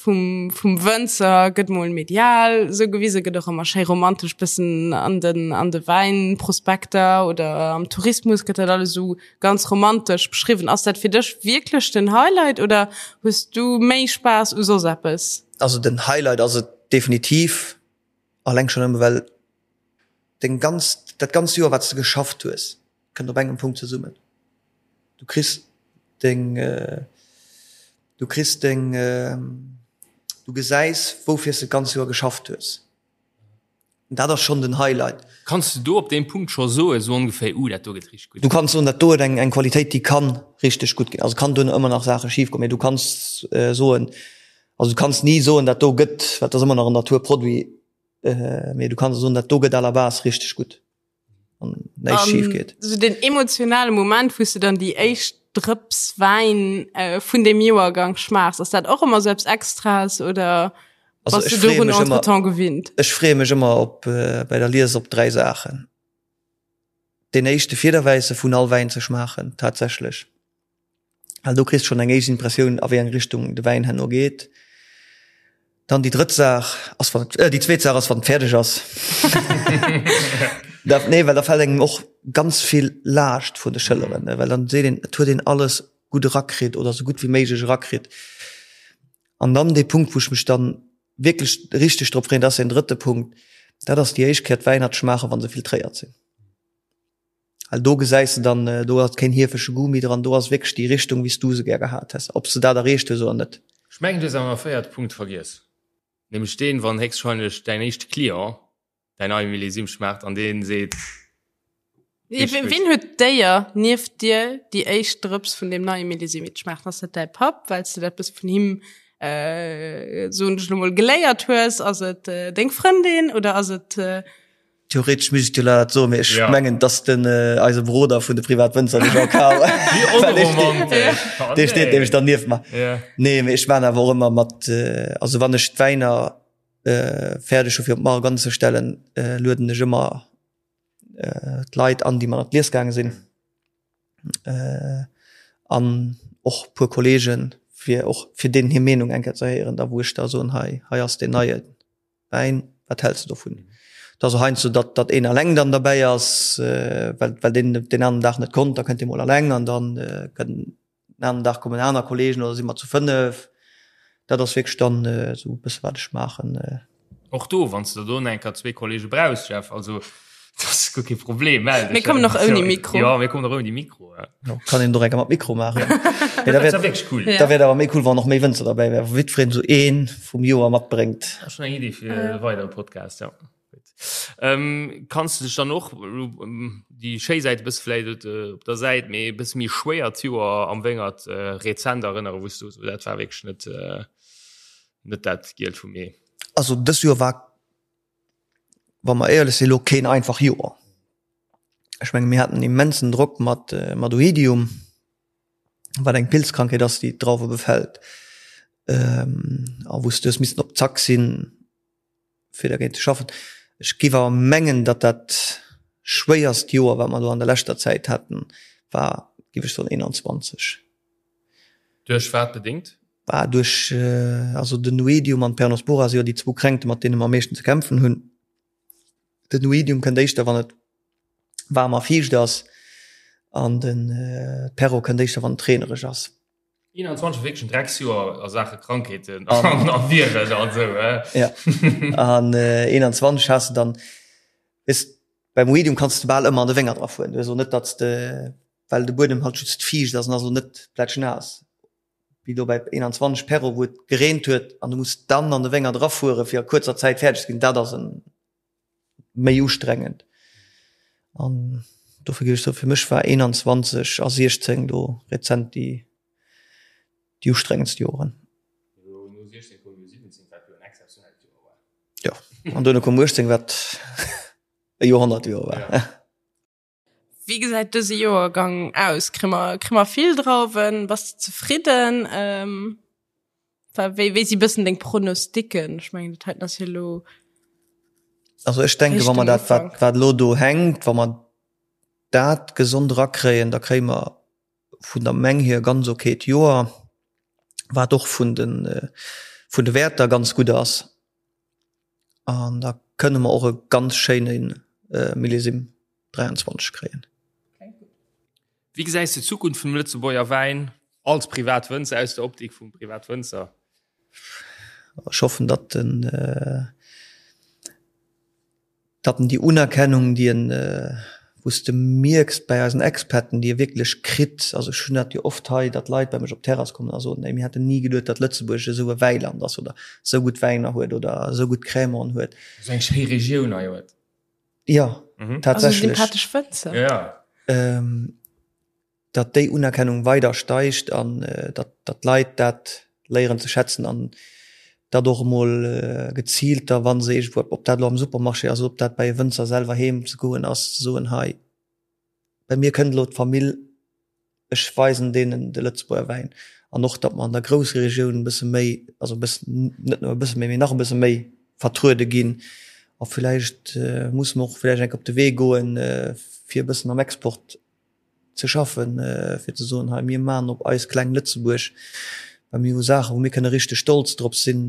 vum vum Wënzer, gëtt mol medial sou gewisen, gëtt och ëmmer schéi romantesch bëssen an den an de Wäinprospekter oder am Tourismus gëtt dat alles sou ganz romantesch beschriwwen. Ass dat fir dech wierklech den Highlight oder hues du méi Spaass u soss eppes? Also den Highlight ass et definitiv, alleng schonn nëmme well deng ganz dat ganz Joer wat s de geschafft hues, kënnt op engem Punkt zesummen. Du kriss deng, du kriss deng, du gesäis woufir s de d'ganz Joer geschafft hues. Dat ass schonn den Highlight. Kanns de do op deem Punkt scho soen, sou ongeféier, uh, dat do gëtt richteg gutt? Du kanns soen, dat do huet eng eng Qualitéit, déi kann richteg gutt ginn. Also kann duerno ëmmer nach Saache schif goen, mee du kanns soen, also du kanns ni soen, dat do gëtt, well et ass ëmmer nach en Naturproduit, mee du kanns soen, dat do gëtt à la base richteg gutt. an näischt schief geet. So den emotionale Moment, wou s du dann déi éischt Drëps Wäin äh, vun dem Joergang schmaachs, ass dat och ëmmer sou eppes Extraes oder Also bass ech du freeë dorun mech ëmmer, entretemps gewinnt? ech freeë mech ëmmer op äh, bei der Lies op 3 Saachen. Deen éischte Fiederwäisse vun all Wäin ze schmaachen tatsächlech. Well do kriss schonn eng éischt Impressioun a wéi eng Richtung de Wäin herno geet. Dann déi drëtt Saach ass wann et, déi zweet Saach ass wann et fäerdeg ass. Da, nee, well da fält engem och ganz vill Laascht vun de Schëlleren, ne, well dann seet een, et huet een alles gutt erakritt oder esou gutt wéi méiglech erakritt. An dann dee Punkt, wou ech mech dann wierklech richteg drop freeën, dat ass deen drëtte Punkt, dat ass déi éischt Kéier d'Wäiner ze schmaachen, wa se filtréiert sinn. Well do gesäis de dann, do ass keen hiefege Goût méi dran, do ass wierklech déi Richtung, wéi s du se gär gehat häss, ob s de dat erreecht hues oder net. Ech mengen, du hues awer nach e véierte Punkt vergiess, nämlech deen, wann héchstwahrscheinlech däin éischte Client däin neie Millésime schmaacht an dee seet, Richteg gutt. Wien huet d'Éier, nieft dir déi éischt Drëps vun deem neie Millésime ze schmaachen? Ass dat däi Papp, well s de dat eppes vun him, soen ech elo mol, geléiert hues? Ass et deng Frëndin oder ass et Theoretesch misst ech dir dat soen, mee ech mengen, dass den eise Broder vun de Privatwënzer, de Jean-Karl, dee steet nämlech dann nieft mer. Nee, mee ech maan awer och ëmmer mat, also wann ech d'Wäiner fäerdeg hu fir op d'Mark anzestellen, lueden ech ëmmer d'Leit an, déi mat an d'Lies gaange sinn, an och puer Kollegen, fir och fir deenen hir Meenung eng Kéier ze héieren, da wou ech da soen, hei, hei ass deen neien. Wäin, wat häls de dovun? Et ass och heiansdo, datt datt een eleng dann derbäi ass, well well deen deen aneren Dag net konnt, da kënnt dee mol eleng an dann kënnt den aneren Dag kommen aner Kollegen oder si mer zu 5. Dat ass wierklech dann esou e bësse wat ech maachen. Och do, wann s de do enker zwee Kollege brauchs, Jeff, also dat ass guer kee Problem, mell dech. Mir kommen och ouni Mikro. Jo, mir kommen och ouni Mikro. Jo, kann een och enker mat Mikro maachen. Mee da wär wierklech cool. Da wär et awer méi cool, wann och méi Wënzer derbäi wären, wou jiddwereen esou een vum Joer matbréngt. Dat ass schonn eng Iddi fir e weidere Podcast, jo. Gutt. Kanns de dech dann och, déi schéi Säit e bësse vläicht op der Säit, mee e bësse méi schwéiert Joer am Wéngert rezent erënneren, wou s du sou, dat war wierklech net, net dat Gielt vum Ee? Also dës Joer war, wa mer éierlech sinn, elo keen einfach Joer. Ech menge mir haten immensen Drock mat mat Oidium, wat eng Pilzkrankheet ass, déi d'Drauwe befält, a wou s du hues missen op Zack sinn, fir dergéint ze schaffen. Ech géif awer mengen, datt dat schwéierst Joer, wat mer elo an der leschter Zäit haten, war, géif ech soen, 21. Duerch wat bedéngt? Bah, duerch, also den Oidium an d'Peronospora si jo déi zwou Kränkte mat deene mer am meeschten ze kämpfen hunn. Den Oidium kënnt éischter wann et waarm a fiicht ass an den Perro kënnt éischter wann et reenereg ass. 21 wierklech en Drecksjoer a Saache Krankheeten an a Viren an esou, eh? Ja, an 21 has de dann, weess, beim Oidium kanns de bal ëmmer an de Wéngert erafueren. Du hues och net, datt s de, well de Buedem halt just fiicht ass an ass och net plätschnaass, wéi do bei 21 Perro, wou et gereent huet an du muss dann an de Wéngert erafuere fir a kuerzer Zäit fäerdeg ze ginn. Dat ass en méi ustrengend an dofir géif ech soen, fir mech war 21 a 16 do rezent déi déi ustrengendst Joren. Jo, an duerno koum 18, wat e Joerhonnertjoer war. Wéi gesäit dëse Joergang aus? Kréie mer, kréie mer vill Drauwen? Bass de zefridden? Ähm, wéi, wéi si bëssen deng Pronosticken? Ech mengen, dat heiten ass jo elo. Also ech denke, wa mer dat, wat, wat elo do hänkt, wa mer dat gesond erakréien, da kréie mer vun der Meng hier e ganz okayt Joer, wat och vun de, vun de Wäerter ganz gutt ass. An da kënne mer och e ganz schéine Millésime 23 kréien. Wéi gesäis de d'Zukunft vum Lëtzebuerger Wäin als Privatwënzer, aus der Optik vum Privatwënzer? Ech hoffen, datt den, datt en déi Unerkennung, déi en, wou s de mierks bei eisen Experten, déi e wierklech kritt, also ech hunn dat jo oft hei, datt Leit bei mech op d'Terrass kommen a soen, ey mir hätten ni geduet, datt Lëtzebuerg esou e Wäiland ass oder esou gutt Wäiner huet oder esou gutt Crémanten huet. Esou eng schéi Regioun hei huet. Jo, tatsächlech. Also sympathesch Wënzer. Ja. Datt déi Unerkennung weider steigt an datt d'Leit dat léieren ze schätzen an datt och emol geziilt da wa se iergendwou, ob dat elo am Supermarché ass oder ob dat bei e Wënzer selwer heem ze goen ass, ze soen, hei bei mir kënnt elo d'Famill, ech weisen deenen de Lëtzebuerger Wäin. An och datt mer an der Groussregioun e bësse méi, also e bëssen, net nëmme e bësse méi, mee nach e bësse méi vertruede ginn. A villäicht musse mer och villäicht eng Kéier op de Wee goen, fir e bëssen am Export ze schaffen, fir ze soen, hei mir maachen op eis kleng Lëtzebuerg, well mir hu Saachen, wou mir kënne richteg stolz drop sinn.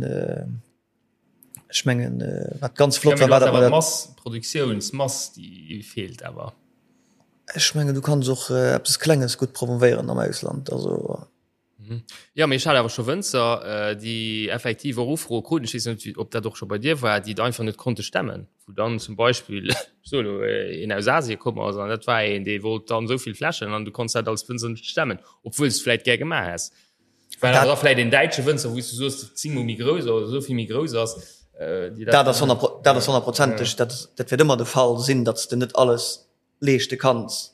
Ech mengen, wat ganz flott war, war dat mer dat. Mass, Produktiounsmass, déi feelt awer. Ech mengen, du kanns och eppes Klenges gutt promovéieren am Ausland, also. Jo, mee ech hat awer scho Wënzer, déi effektiv och Ufroe kruten, ech weess net, ob dat och scho bei dir war, déi et einfach net konnte stemmen, wou dann zum Beispill, ech soe elo, een aus Asien komm ass an dat war een, dee wollt dann esou vill Fläschen an du konns dat als Wënzer net stemmen, obwuel s de vläicht gär gemaach häss. Well awer da vläicht een däitsche Wënzer, wou s du soos, zéngmol méi grouss oder esou vill méi grouss ass, déi dat. Dat ass dat ass honnertprozenteg, dat dat wäert ëmmer de Fall sinn, datt s de net alles leeschte kanns.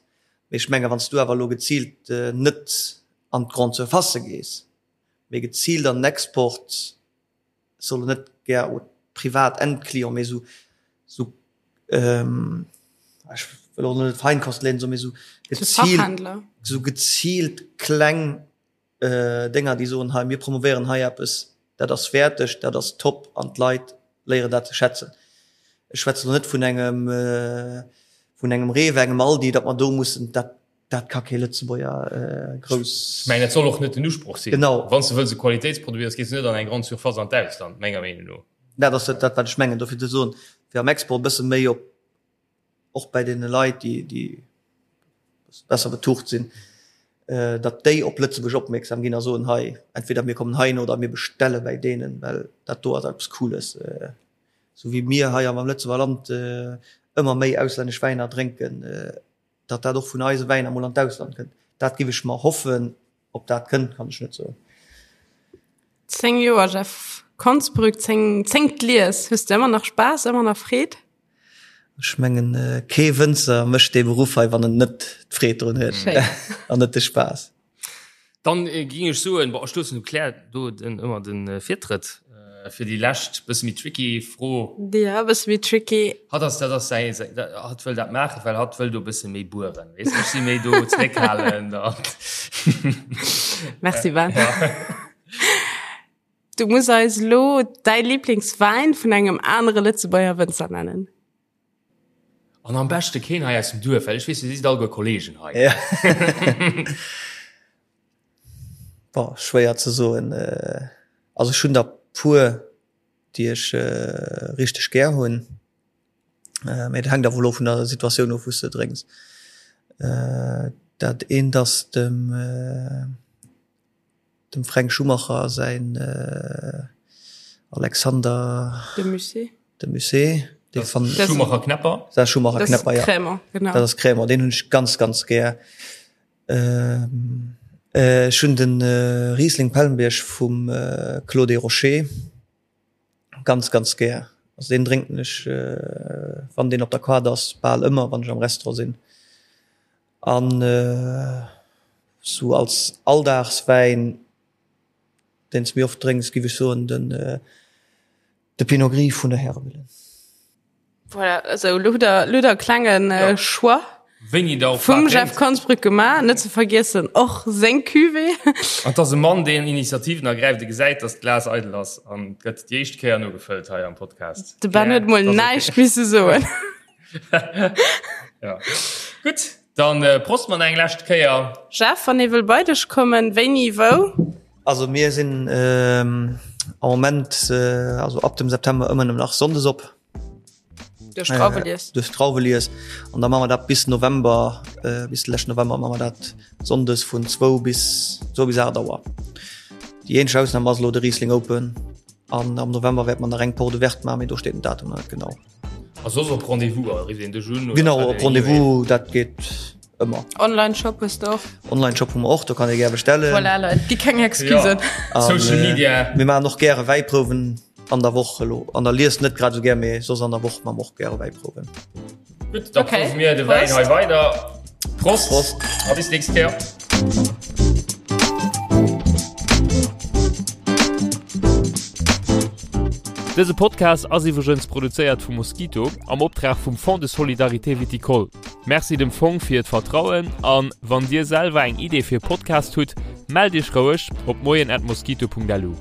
Mee ech menge wann s du awer elo geziilt net an d'Grande Surface gees, mee geziilt an den Export, ech soll elo net gär au privat Endclient, mee esou, esou, ech wëll och net Feinkostläden soen, mee esou geziilt, esou geziilt kleng Dénger, déi soen, hei mir promovéieren hei eppes, dat ass wäerteg, dat ass top an d'Leit léieren dat ze schätzen. Ech schwätzen elo net vun engem, vun engem Rewe, engem Aldi, datt mer do mussen, dat, dat ka kee Lëtzebuerger grouss. Ech mengen, dat soll och net den Usproch sinn. Genau. Wann s de wëlls e Qualitéitsproduit ass, gees de net an eng Grande Surface an d'Ausland, menger Meenung no. Dat ass dat, wat ech mengen. Dofir ze soen, fir am Export e bësse méi op och bäi deene Leit, déi, déi besser betucht sinn, datt déi op Lëtzebuerg opmierksam ginn a soen, hei, entweder mir kommen heihin oder mir bestelle bäi deenen, well dat do ass eppes Cooles. Esou wéi mir hei am Lëtzebuerger Land ëmmer méi auslännesch Wäiner drénken, datt dat och vun eise Wäiner mol an d'Ausland kënnt, dat giff ech mer hoffen. Ob dat kënnt, kann ech net soen. 10 Joer Jeff Konsbrück, 10, zéngt Lies. Hues de ëmmer nach Spaass, ëmmer nach Freed? Ech mengen, kee Wënzer mécht dee Beruff hei, wann en net d'Freed drun huet an net de Spaass. Dann ging ech soen, bon, ech loossen dem Claire do den, ëmmer de Virtrëtt fir déi lescht bësse méi tricky Fro. Ja, e bësse méi tricky. Hatt ass, dat ass säi, säi, hatt wëll dat maachen, well hatt wëll do e bësse méi bueren, weess de. Ech si méi do zréckhalend an. Merci Ben. Ja. Du muss eis elo däi Liblingswäin vun engem anere Lëtzebuerger Wënzer nennen. An am beschte keen hei aus dem Duerf, well ech weess, dir sidd alleguer Kollegen hei. Ja. Boah, schwéier ze soen. Also ech hunn der puer, déi ech richteg gär hunn. Mee dat hänkt awer elo vun der Situatioun of, wou s de drénks. Dat eent ass dem dem Fränk Schumacher säin Alexander De Musset. De Musset. Dee fan Schumacher Knäpper. Dat Schumacher Knäpper, ja. Crémant, genau. Dat ass Crémant, deen hunn ech ganz, ganz gär. Ech hunn de Riesling Pellenbierg vum Clos des Rochers ganz, ganz gär. Also deen drénken ech, wann deen op der Kaart ass, bal ëmmer, wann ech am Restaurant sinn. An sou als Alldagswäin, deen s méi oft drénks, giff ech soen den de Pinot Gris vun der Häremillen. Voilà, also lo hutt der, lo hutt der e klengen Ja. Choix Wéini der och vum wat Jeff drénkt. Konsbrück gemaach. Net ze vergiessen och seng Cuvée. An et ass e Mann, deen Initiativen ergräift, e gesäit, datt d'Glas eidel ass an gëtt déi éischt Kéier nogefëllt hei am Podcast. De Ben Ja, huet mol dat ass okay. näischt misse soen. Ja. Gutt, dann Prost mer nach eng lescht Kéier. Jeff, wann ee wëll bei dech kommen, wéini, wou? Also mir sinn am Moment, also ab dem September ëmmer nëmmen nach Sonndes op. Duerch d'Drauwelies. Duerch d'Drauwelies. An da maache mer dat bis November, bis de leschten November maache mer dat Sonndes vun zwou bis zwou bis 8 Auer. Déi eenzeg Ausnam ass elo de Riesling Open an am November wäerte mer nach eng Porte ouverte maachen, mee do steet den Datum nach net genau. A soss op Rendez-vous, rifft een dech un? Genau, op Rendez-vous, dat geet ëmmer. Online-Shop hues de och? Online-Shop hu mer och, do kann ee gär bestellen. Voilà, Leit, gi keng Excusen. Ja. Social Media. Mir maachen och gäre Wäiprouwen an der Woch elo. An der Lies net grad esou gär, mee soss an der Woch maache mer och gäre Wäiprouwen. Gutt, da okay. prouwe mir de Wäin hei weider. Prost. Prost. A bis nächst Kéier. Dëse Podcast ass iwwregens produzéiert vu Mosquito am Optrag vum Fonds de Solidarité Viticole. Merci dem Fong fir d'Vertrauen an wann dir selwer eng Idee fir e Podcast hutt, mellt iech roueg op moien@mosquito.lu.